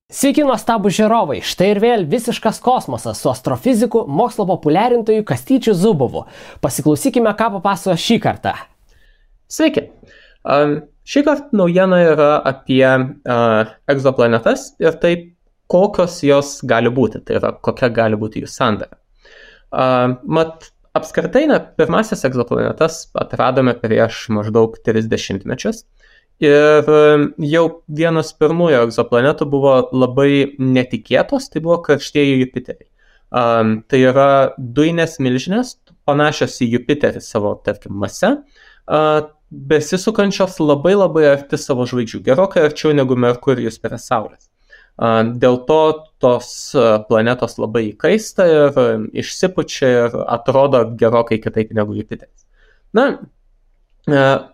Sveiki nuostabūs žiūrovai, štai ir vėl visiškas kosmosas su astrofiziku, mokslo populiarintoju Kastyčiu Zubovu. Pasiklausykime, ką papasakojo šį kartą. Sveiki. Šį kartą naujiena yra apie egzoplanetas ir taip, kokios jos gali būti, tai yra kokia gali būti jų sandara. Apskritai, pirmasis egzoplanetas atradome prieš maždaug 30 mečius. Ir jau vienas pirmųjų egzoplanetų buvo labai netikėtos, tai buvo karštieji Jupiteriai. Tai yra dujinės milžinės, panašios į Jupiterį savo, tarkim, mase, besisukančios labai arti savo žvaigždžių, gerokai arčiau negu Merkurijus prie Saulės. Dėl to tos planetos labai įkaista ir išsipučia ir atrodo gerokai kitaip negu Jupiteris.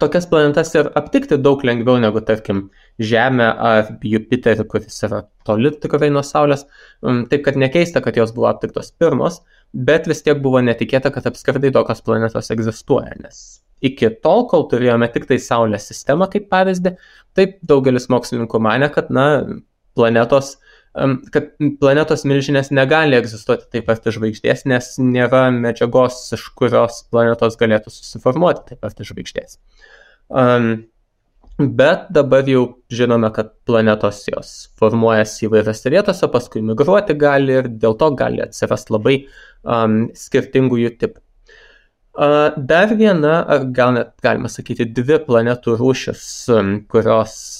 Tokias planetas ir aptikti daug lengviau negu, tarkim, Žemę ar Jupiterį, kuris yra toli tikrai nuo Saulės. Taip, kad nekeista, kad jos buvo aptiktos pirmos, bet vis tiek buvo netikėta, kad apskritai tokios planetos egzistuoja, nes iki tol, kol turėjome tik tai Saulės sistemą kaip pavyzdį, taip daugelis mokslininkų manė, kad planetos milžinės negali egzistuoti taip arti žvaigždės, nes nėra medžiagos, iš kurios planetos galėtų susiformuoti taip arti žvaigždės. Bet dabar jau žinome, kad planetos jos formuojasi įvairiose vietose, paskui migruoti gali ir dėl to gali atsirasti labai skirtingų jų tipų. Dar viena, ar gal net galima sakyti, dvi planetų rūšis, kurios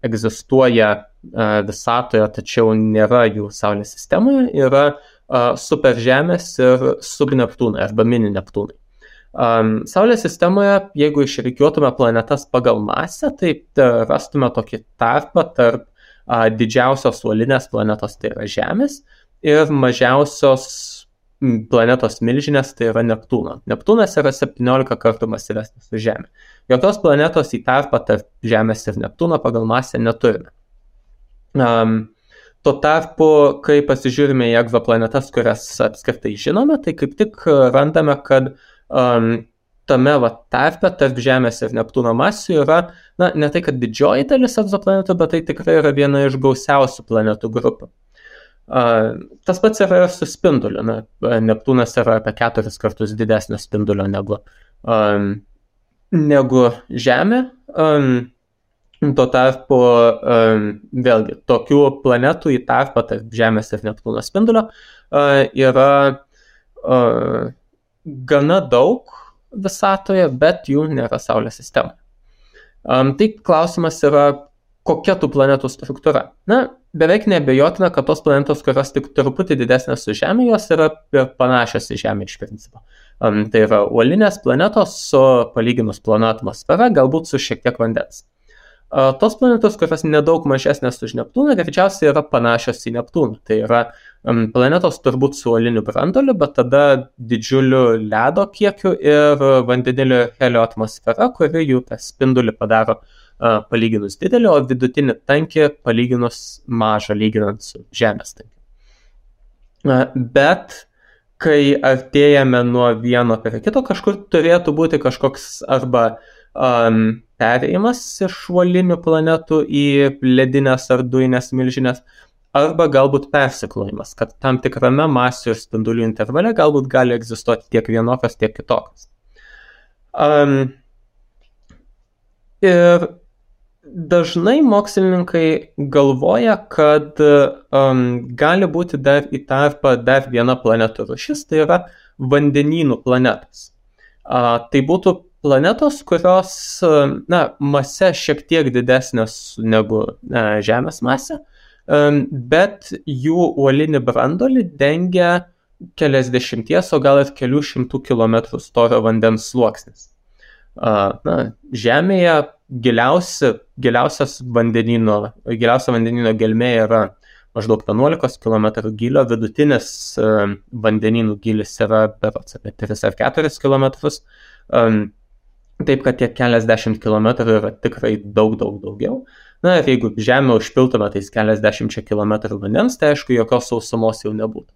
egzistuoja visatoje, tačiau nėra jų Saulės sistemoje, yra superžemės ir subneptūnai arba mini Neptūnai. Saulės sistemoje, jeigu išrikiuotume planetas pagal masę, tai rastume tokį tarpą tarp didžiausios uolinės planetos, tai yra Žemės, ir mažiausios planetos milžinės, tai yra Neptūno. Neptūnas yra 17 kartų masyvesnis už Žemę. Jokios planetos į tarpą tarp Žemės ir Neptūno pagal masę neturime. Tuo tarpu, kai pasižiūrime į egzoplanetas, kurias apskritai žinome, tai kaip tik randame, kad tame tarpe tarp Žemės ir Neptūno masių yra, ne tai, kad didžioji dalis egzoplanetų, bet tai tikrai yra viena iš gausiausių planetų grupių. Tas pats yra ir su spinduliu. Neptūnas yra apie 4 kartus didesnio spindulio negu Žemė. Tuo tarpu, vėlgi, tokių planetų į tarpą tarp Žemės ir Neptūno spindulio yra gana daug visatoje, bet jų nėra Saulės sistemoje. Tai klausimas yra, kokia tų planetų struktūra. Beveik neabejotina, kad tos planetos, kurios tik truputį didesnės už Žemę, jos yra panašios į Žemę iš principo. Tai yra uolinės planetos su palyginus plona atmosfera, galbūt su šiek tiek vandens. Tos planetos, kurios nedaug mažesnės už Neptūną, greičiausiai yra panašios į Neptūną. Tai yra planetos turbūt su uoliniu branduoliu, bet tada didžiuliu ledo kiekiu ir vandenilio helio atmosfera, kuri jų tą spindulį padaro palyginus didelį, o vidutinį tankį palyginus mažą, lyginant su Žemės tankiu. Bet kai artėjame nuo vieno prie kito, kažkur turėtų būti kažkoks arba perėjimas iš uolinių planetų į ledinės ar dujinės milžinės, arba galbūt persiklojimas, kad tam tikrame masių ir spindulių intervale galbūt gali egzistuoti tiek vienokios, tiek kitokios. Ir dažnai mokslininkai galvoja, kad gali būti dar į tarpą dar viena planetų rūšis, tai yra vandenynų planetos. Tai būtų planetos, kurios mase šiek tiek didesnės negu Žemės masė, bet jų uolinį branduolį dengia keliasdešimties, o gal ir kelių šimtų kilometrų storio vandens sluoksnis. Žemėje giliausia vandenyno gelmė yra maždaug 11 km gylio, vidutinis vandenynų gylis yra berods apie 3 ar 4 km, taip kad tie keliasdešimt kilometrų yra tikrai daugiau. Ir jeigu Žemę užpiltume tais keliasdešimčia kilometrų vandens, tai aišku, jokios sausumos jau nebūtų.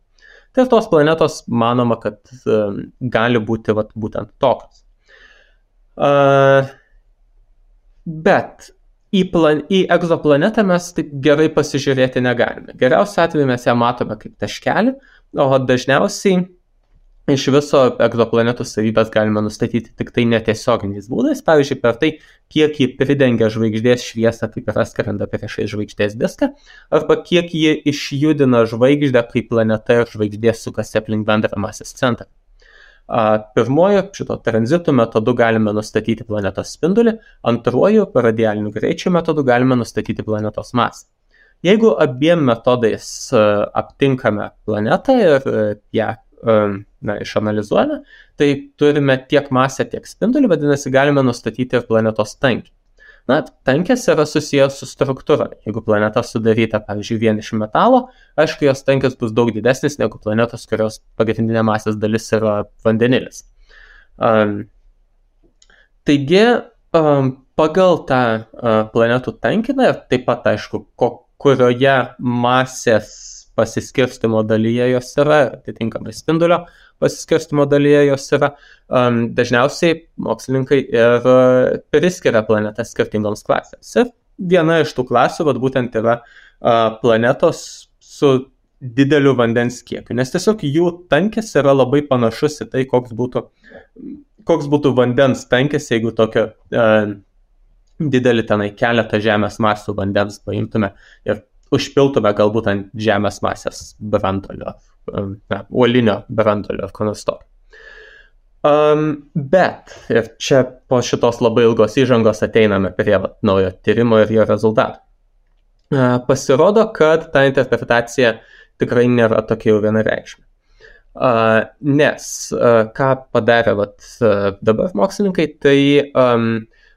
Tai tos planetos manoma, kad gali būti būtent tokios. Bet į egzoplanetą mes taip gerai pasižiūrėti negalime. Geriausiu atveju mes ją matome kaip taškelį, o dažniausiai iš viso egzoplanetų savybės galime nustatyti tik tai netiesioginiais būdais, pavyzdžiui, per tai, kiek ji pridengia žvaigždės šviesą, kaip yra skrenda priešais žvaigždės diską, arba kiek ji išjudina žvaigždę, kai planeta ir žvaigždė sukasi aplink bendrą masės centrą. Pirmoju šito tranzitų metodu galime nustatyti planetos spindulį, antruoju radialiniu greičiu metodu galime nustatyti planetos masę. Jeigu abiem metodais aptinkame planetą ir ją išanalizuojame, tai turime tiek masę, tiek spindulį, vadinasi, galime nustatyti ir planetos tankį. Tankis yra susijęs su struktūra. Jeigu planeta sudaryta, pavyzdžiui, vien iš metalo, aišku, jos tankis bus daug didesnis negu planetos, kurios pagrindinė masės dalis yra vandenilis. Taigi, pagal tą planetų tankiną ir taip pat, aišku, kurioje masės pasiskirstimo dalyje jos yra, atitinkamai spindulio pasiskirstimo dalyje jos yra, dažniausiai mokslininkai ir priskiria planetas skirtingoms klasėms. Ir viena iš tų klasių būtent yra planetos su dideliu vandens kiekiu, nes tiesiog jų tankis yra labai panašus į tai, koks būtų vandens tankis, jeigu tokio didelį tenai keletą žemės masių vandens paimtume ir užpiltume galbūt ant žemės masės brandolio, uolinio brandolio ar ko nors tokio. Bet ir čia po šitos labai ilgos įžangos ateiname prie naujo tyrimo ir jo rezultatų. Pasirodo, kad ta interpretacija tikrai nėra tokia jau vienareikšmė. Nes ką padarė dabar mokslininkai, tai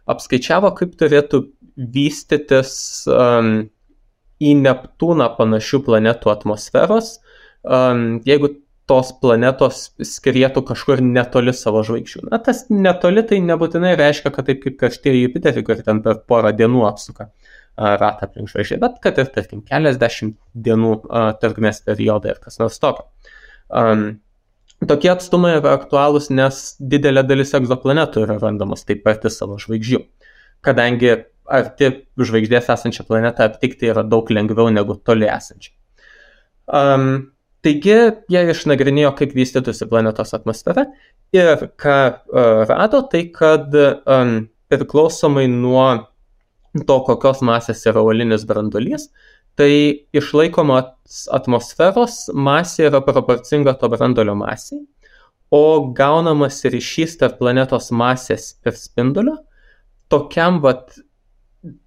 apskaičiavo, kaip turėtų vystytis į Neptūną panašių planetų atmosferos, jeigu tos planetos skrietų kažkur netoli savo žvaigždžių. Tas netoli tai nebūtinai reiškia, kad taip kaip karštieji Jupiterį, kur ten per porą dienų apsuka ratą aplink žvaigždę, bet kad ir, tarkim, keliasdešimt dienų trukmės periodai ir kas nors tokio. Tokie atstumai yra aktualūs, nes didelė dalis egzoplanetų yra randamos taip arti savo žvaigždžių, kadangi arti žvaigždės esančią planetą aptikti yra daug lengviau negu toli esančią. Taigi, jie išnagrinėjo, kaip vystytųsi planetos atmosfera ir ką rado, tai kad priklausomai nuo to, kokios masės yra uolinis branduolys, tai išlaikomos atmosferos masė yra proporcinga to branduolio masei, o gaunamas ryšys tarp planetos masės ir spindulio tokiam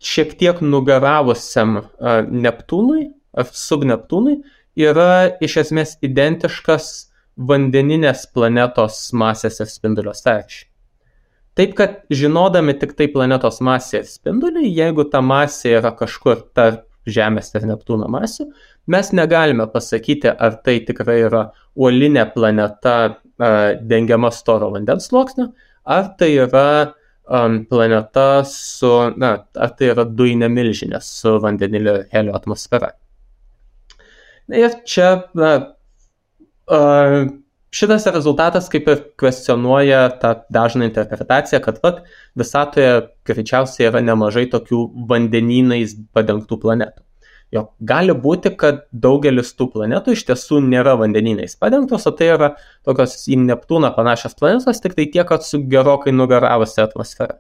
šiek tiek nugaravusiam Neptūnui ar subneptūnui yra iš esmės identiškas vandeninės planetos masės ir spindulio sąryšiui. Taip, kad žinodami tik tai planetos masę ir spindulį, jeigu ta masė yra kažkur tarp Žemės ir Neptūno masių, mes negalime pasakyti, ar tai tikrai yra uolinė planeta dengiama storo vandens sluoksniu, ar tai yra planeta ar tai yra dujinė milžinė su vandenilio ir helio atmosfera. Ir čia šitas rezultatas kaip ir kvestionuoja tą dažną interpretaciją, kad visatoje greičiausiai yra nemažai tokių vandenynais padengtų planetų. Jo, gali būti, kad daugelis tų planetų iš tiesų nėra vandenynais padengtos, o tai yra tokios į Neptūną panašios planetos, tik tai tiek, kad su gerokai nugaravusi atmosfera.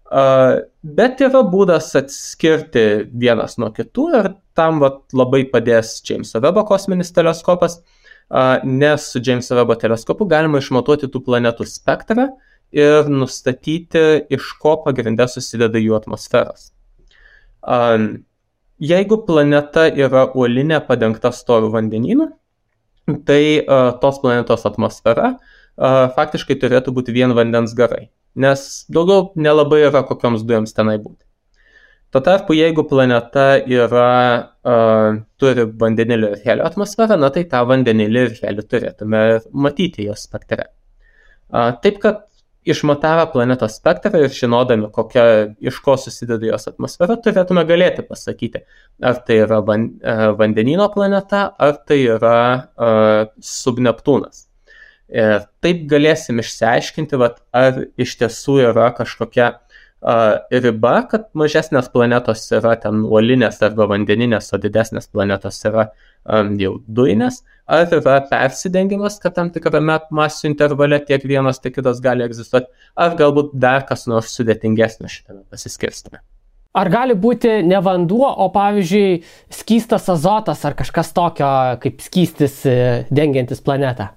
Bet yra būdas atskirti vienas nuo kitų ir tam labai padės Jameso Webbo kosminis teleskopas, nes su Jameso Webbo teleskopu galima išmatuoti tų planetų spektrą ir nustatyti, iš ko pagrinde susideda jų atmosferos. Jeigu planeta yra uolinė padengta storu vandenynu, tai tos planetos atmosfera faktiškai turėtų būti vien vandens garai, nes daugiau nelabai yra kokioms dujoms tenai būti. Tuo tarpu, jeigu planeta turi vandenilio ir helio atmosferą, tai tą vandenilį ir helį turėtume matyti jos spektre. Taip, kad išmatavę planetos spektrą ir žinodami, iš ko susideda jos atmosfera, turėtume galėti pasakyti, ar tai yra vandenyno planeta, ar tai yra subneptūnas. Ir taip galėsim išsiaiškinti, ar iš tiesų yra kažkokia riba, kad mažesnės planetos yra ten uolinės arba vandeninės, o didesnės planetos yra jau dujinės, ar yra persidengimas, kad tam tikrame masių intervale tiek vienas, tiek kitas gali egzistuoti, ar galbūt dar kas nors sudėtingesnio šitame pasiskirstame. Ar gali būti ne vanduo, o pavyzdžiui skystas azotas ar kažkas tokio kaip skystis dengiantis planetą?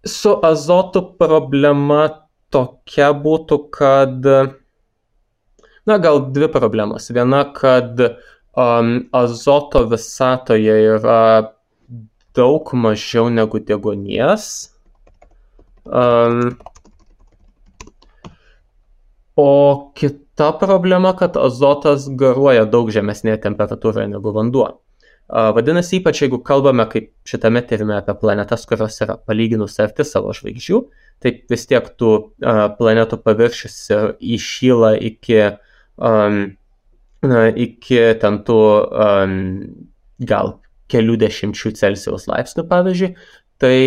Su azotu problema tokia būtų, kad, gal dvi problemos. Viena, kad azoto visatoje yra daug mažiau negu deguonies. O kita problema, kad azotas garuoja daug žemesnėje temperatūroje negu vanduo. Vadinasi, ypač jeigu kalbame kaip šitame tyrime apie planetas, kurios yra palyginus arti savo žvaigždžių, tai vis tiek tų planetų paviršius įšyla iki ten tų gal kelių dešimčių Celsijaus laipsnių, pavyzdžiui, tai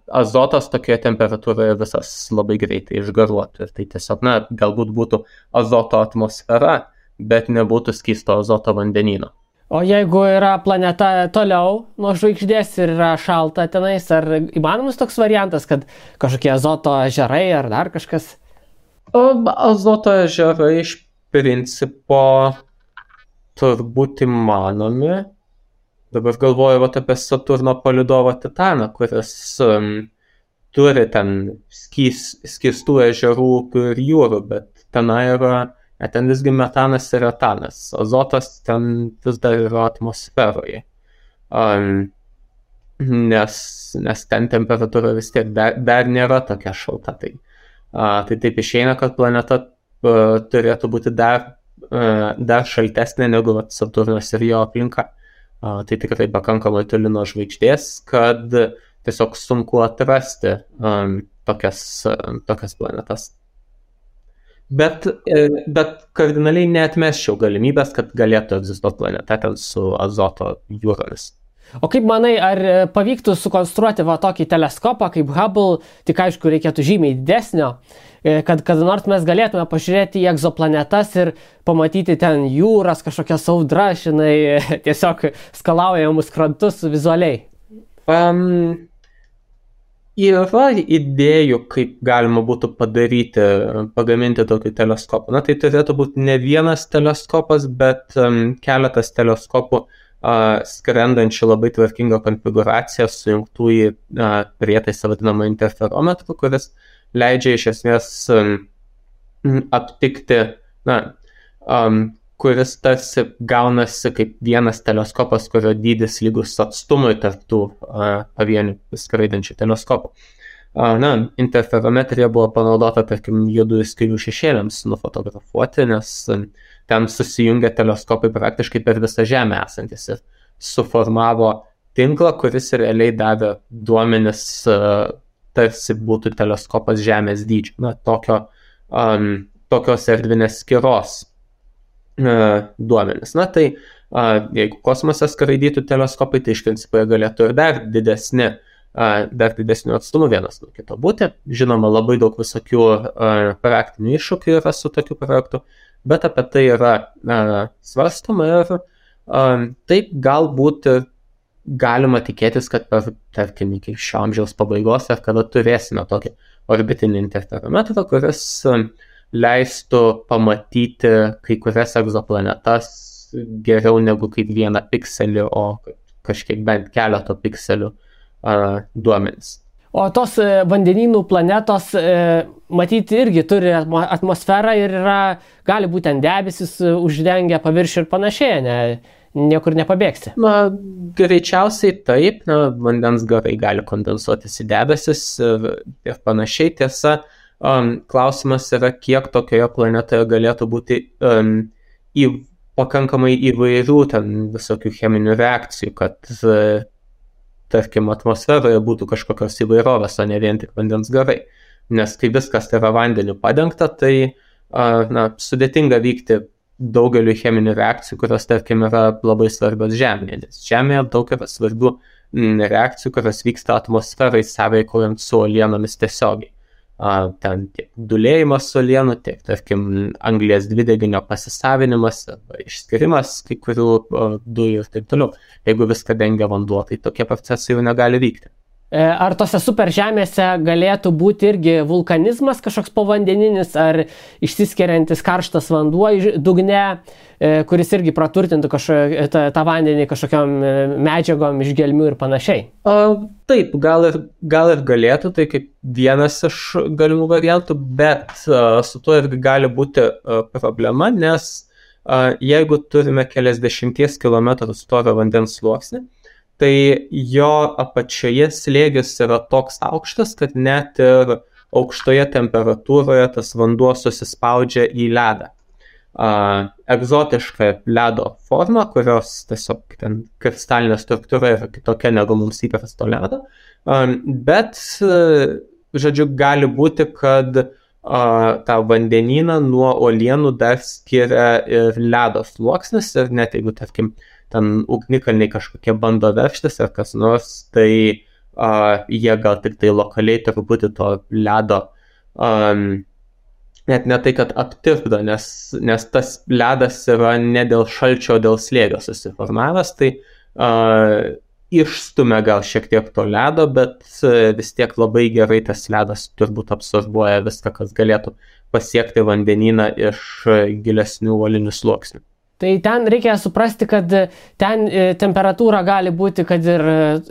azotas tokioje temperatūroje visas labai greitai išgaruotų. Ir tai tiesiog, galbūt būtų azoto atmosfera, bet nebūtų skysto azoto vandenyno. O jeigu yra planeta toliau nuo žvaigždės ir yra šalta tenais, ar įmanomas toks variantas, kad kažkokie azoto ežerai ar dar kažkas? Azoto ežerai iš principo turbūt įmanomi. Dabar galvoju apie Saturno palydovą Titaną, kuris turi ten skystų ežerų, upių ir jūrų, bet tenai yra ten visgi metanas ir etanas. Azotas ten vis dar yra atmosferoje. Nes ten temperatūra vis tiek dar nėra tokia šalta. Tai taip išeina, kad planeta turėtų būti dar šaltesnė negu Saturnas ir jo aplinka. Tai tikrai pakankamai toli nuo žvaigždės, kad tiesiog sunku atrasti tokias planetas. Bet kardinaliai neatmesčiau galimybės, kad galėtų egzistuoti planeta ten su azoto jūromis. O kaip manai, ar pavyktų sukonstruoti tokį teleskopą kaip Hubble, tik aišku reikėtų žymiai didesnio, kad nors mes galėtume pažiūrėti į egzoplanetas ir pamatyti ten jūras, kažkokias audras, tiesiog skalaujamus krantus vizualiai? Yra idėjų, kaip galima būtų pagaminti tokį teleskopą. Tai turėtų būti ne vienas teleskopas, bet keletas teleskopų skrendančių labai tvarkingą konfiguraciją sujungtų į prietaisą vadinamą interferometrų, kuris leidžia iš esmės aptikti, kuris tarsi gaunasi kaip vienas teleskopas, kurio dydis lygus atstumui tarp tų pavienių skraidančių teleskopų. Interferometrija buvo panaudota, tarkim, juodųjų skylių šešėliams nufotografuoti, nes ten susijungia teleskopai praktiškai per visą Žemę esantis ir suformavo tinklą, kuris realiai davė duomenis, tarsi būtų teleskopas Žemės dydžio. Tokios erdvinės skyros duomenis. Tai jeigu kosmose skraidytų teleskopai, tai iš principo jie galėtų ir dar didesnių atstumų vienas nuo kito būti. Žinoma, labai daug visokių praktinių iššūkių yra su tokiu projektu, bet apie tai yra svarstoma ir taip galbūt galima tikėtis, kad per, tarkim, iki šio amžiaus pabaigos ar kada turėsime tokį orbitinį interferometrą, kuris leistų pamatyti kai kurias egzoplanetas geriau negu kaip vieną pikselį, o kažkiek bent keleto pikselių duomenis. O tos vandenynų planetos, matyti, irgi turi atmosferą ir gali būti ten debesis uždengia paviršių ir panašiai, niekur nepabėgsi. Greičiausiai taip, vandens garai gali kondensuotis į debesis ir panašiai. Tiesa, klausimas yra, kiek tokioje planetoje galėtų būti pakankamai įvairių ten visokių cheminių reakcijų, kad tarkim, atmosferoje būtų kažkokios įvairovės, o ne vien tik vandens garai. Nes kai viskas yra vandeniu padengta, tai sudėtinga vykti daugeliu cheminių reakcijų, kurios, tarkim, yra labai svarbios Žemėje. Nes Žemėje daug yra svarbių reakcijų, kurios vyksta atmosferai sąveikaujant su uolienomis tiesiogiai. ten tiek dūlėjimas uolienų, tiek, tarkim, anglies dvideginio pasisavinimas arba išskirimas kai kurių dujų ir taip toliau. Jeigu viską dengia vanduo, tai tokie procesai jau negali vykti. Ar tose superžemėse galėtų būti irgi vulkanizmas kažkoks povandeninis, ar išsiskiriantis karštas vanduo dugne, kuris irgi praturtintų tą vandenį kažkokiam medžiagom iš gelmių ir panašiai? Taip, gal ir galėtų, tai kaip vienas iš galimų variantų, bet su tuo irgi gali būti problema, nes jeigu turime keliasdešimties kilometrų storio vandens sluoksnį, tai jo apačioje slėgis yra toks aukštas, kad net ir aukštoje temperatūroje tas vanduo susispaudžia į ledą. Egzotiška ledo forma, kurios tiesiog ten kristalinė struktūra yra kitokia negu mums įprasto ledo, bet, žodžiu, gali būti, kad tą vandenyną nuo uolienų dar skiria ir ledo sluoksnis ir net jeigu, tarkim, ten ugnikalniai kažkokie bando veržtis ar kas nors, tai jie gal tik tai lokaliai truputį to ledo net ne tai, kad aptirpdo, nes tas ledas yra ne dėl šalčio, o dėl slėgio susiformavęs, tai išstumia gal šiek tiek to ledo, bet vis tiek labai gerai tas ledas turbūt absorbuoja viską, kas galėtų pasiekti vandenyną iš gilesnių uolinių sluoksnių. Tai ten reikia suprasti, kad ten temperatūra gali būti, kad ir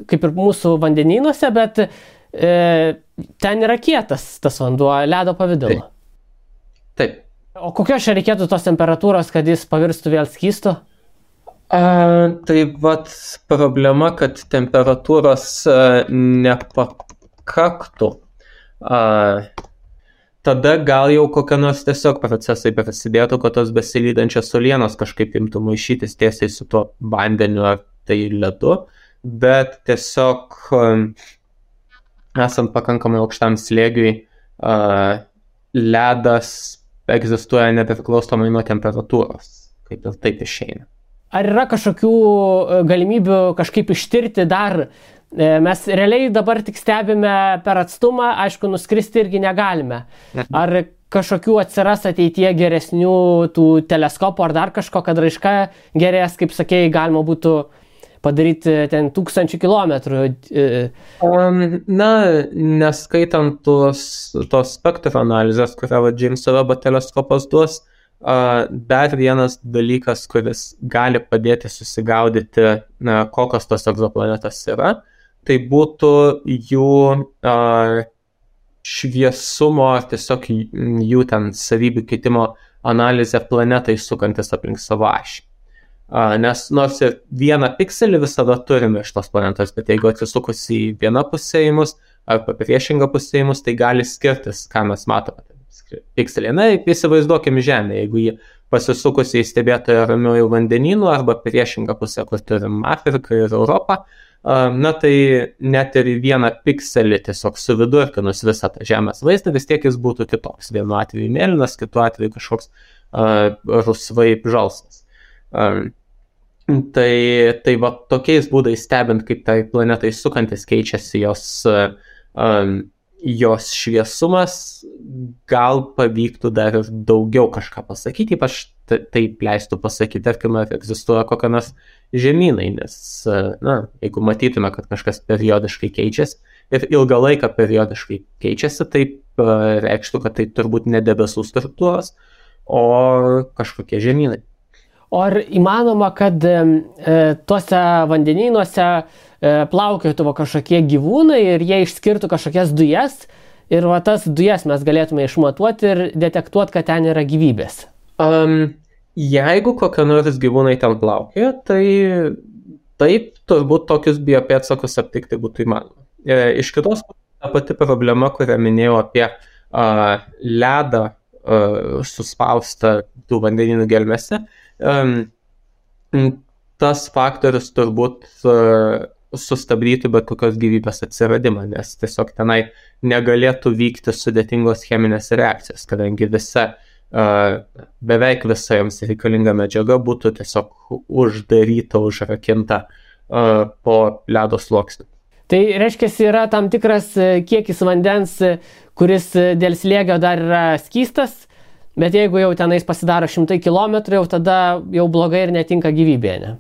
kaip ir mūsų vandenynuose, bet ten yra kietas tas vanduo, ledo pavidalu. Taip. O kokios čia reikėtų tos temperatūros, kad jis pavirstų vėl skystu? Tai vat problema, kad temperatūros nepakaktų. Tada gal jau kokie nors tiesiog procesai prasidėtų, kad tos besilydančios uolienos kažkaip imtų maišytis tiesiai su tuo vandeniu ar tai ledu, bet tiesiog esant pakankamai aukštam slėgiui, ledas egzistuoja nepriklausomai nuo temperatūros, kaip ir taip išeina. Ar yra kažkokių galimybių kažkaip ištirti dar? Mes realiai dabar tik stebime per atstumą, aišku, nuskristi irgi negalime. Ar kažkokių atsiras ateityje geresnių tų teleskopų ar dar kažko, kad raiška gerės, kaip sakėjai, galima būtų padaryti ten 1000 kilometrų? Na, neskaitant tos spektro analizės, kurią Džeimso Vebo teleskopas duos, dar vienas dalykas, kuris gali padėti susigaudyti, kokios tos egzoplanetos yra, tai būtų jų šviesumo ar tiesiog jų ten savybių keitimo analizė planetai sukantis aplink savo ašį. Nes nors ir vieną pikselį visada turime iš tos planetos, bet jeigu atsisukus į vieną pusę į mus arba priešingą pusę į mus, tai gali skirtis, ką mes matome. Pikselį. Na, įsivaizduokime Žemę, jeigu jį pasisukus į stebėtoją ramiųjų vandenynų arba priešingą pusę, kur turim Afriką ir Europą, na tai net ir vieną pikselį tiesiog suvidurkinus visą tą Žemės vaizdą, vis tiek jis būtų kitoks. Vienu atveju mėlynas, kitu atveju kažkoks rusvai žalsvas. Tai va tokiais būdais stebint, kaip tai planetai sukantis keičiasi jos šviesumas, gal pavyktų dar ir daugiau kažką pasakyti, ypač taip leistų pasakyti, tarkime, ar egzistuoja kokia nors žemynai, nes, jeigu matytume, kad kažkas periodiškai keičiasi ir ilgą laiką periodiškai keičiasi, tai reikštų, kad tai turbūt ne debesų struktūros, o kažkokie žemynai. O ar įmanoma, kad tuose vandenynuose plaukiotų kažkokie gyvūnai ir jie išskirtų kažkokias dujas ir va tas dujas mes galėtume išmatuoti ir detektuoti, kad ten yra gyvybės? Jeigu kokie nors gyvūnai ten plaukioja, tai taip, turbūt tokius biopėdsakus aptikti būtų įmanoma. Iš kitos ta pati problema, kurią minėjau apie ledą suspaustą tų vandenynų gelmėse, tas faktorius turbūt sustabdytų bet kokios gyvybės atsiradimą, nes tiesiog tenai negalėtų vykti sudėtingos cheminės reakcijos, kadangi beveik visa jiems reikalinga medžiaga būtų tiesiog uždaryta, užrakinta po ledo sluoksniu. Tai reiškia, yra tam tikras kiekis vandens, kuris dėl slėgio dar yra skystas, bet jeigu jau tenais pasidaro 100 km, jau tada jau blogai ir netinka gyvybė, ne?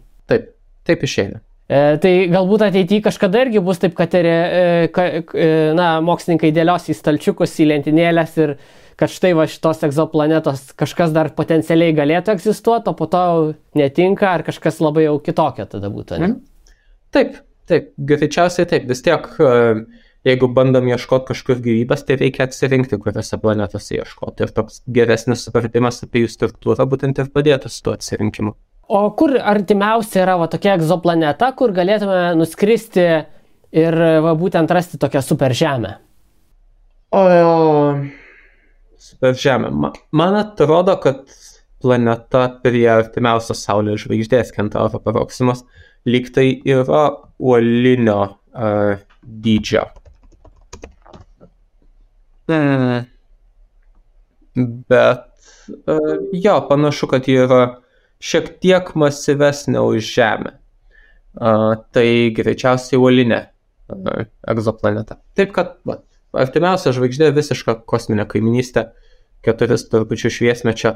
Taip išeina. Tai galbūt ateityje kažkada irgi bus taip, kad mokslininkai dėlios į stalčiukus, į lentynėlės ir kad štai va šitos egzoplanetos kažkas dar potencialiai galėtų egzistuoti, o po to netinka, ar kažkas labai jau kitokio tada būtų, ne? Taip, greičiausiai taip. Vis tiek, jeigu bandom ieškoti kažkur gyvybės, tai reikia atsirinkti, kuriuose planetose ieškoti. Ir toks geresnis supratimas apie jų struktūrą būtent ir padėtų su tuo atsirinkimu. O kur artimiausia yra va tokia egzoplaneta, kur galėtume nuskristi ir va būtent rasti tokią superžemę? Superžemė. Man atrodo, kad planeta prie artimiausios Saulės žvaigždės Kentauro Proximus lyg tai yra uolinio dydžio. Bet panašu, kad ji yra šiek tiek masyvesnė už Žemę. Tai greičiausiai uolinė egzoplaneta. Taip kad artimiausia žvaigždė visiška kosminė kaiminystė, 4 trupučių šviesmečio,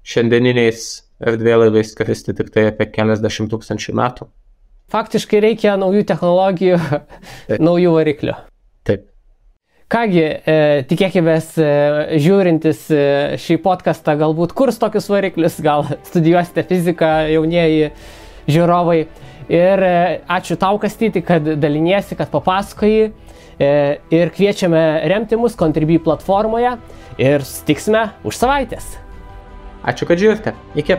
šiandieniniais erdvėlaiviais skristi tik tai apie keliasdešimt tūkstančių metų. Faktiškai reikia naujų technologijų, naujų variklių. Taip. Kągi, tikėkimės, žiūrintis šį podcastą galbūt kurs tokius variklius, gal studijuosite fiziką, jaunieji žiūrovai. Ir ačiū tau, Kastyti, kad daliniesi, kad papasakoji. Ir kviečiame remti mus Contribui platformoje ir susitiksime už savaitės. Ačiū, kad žiūrite. Iki.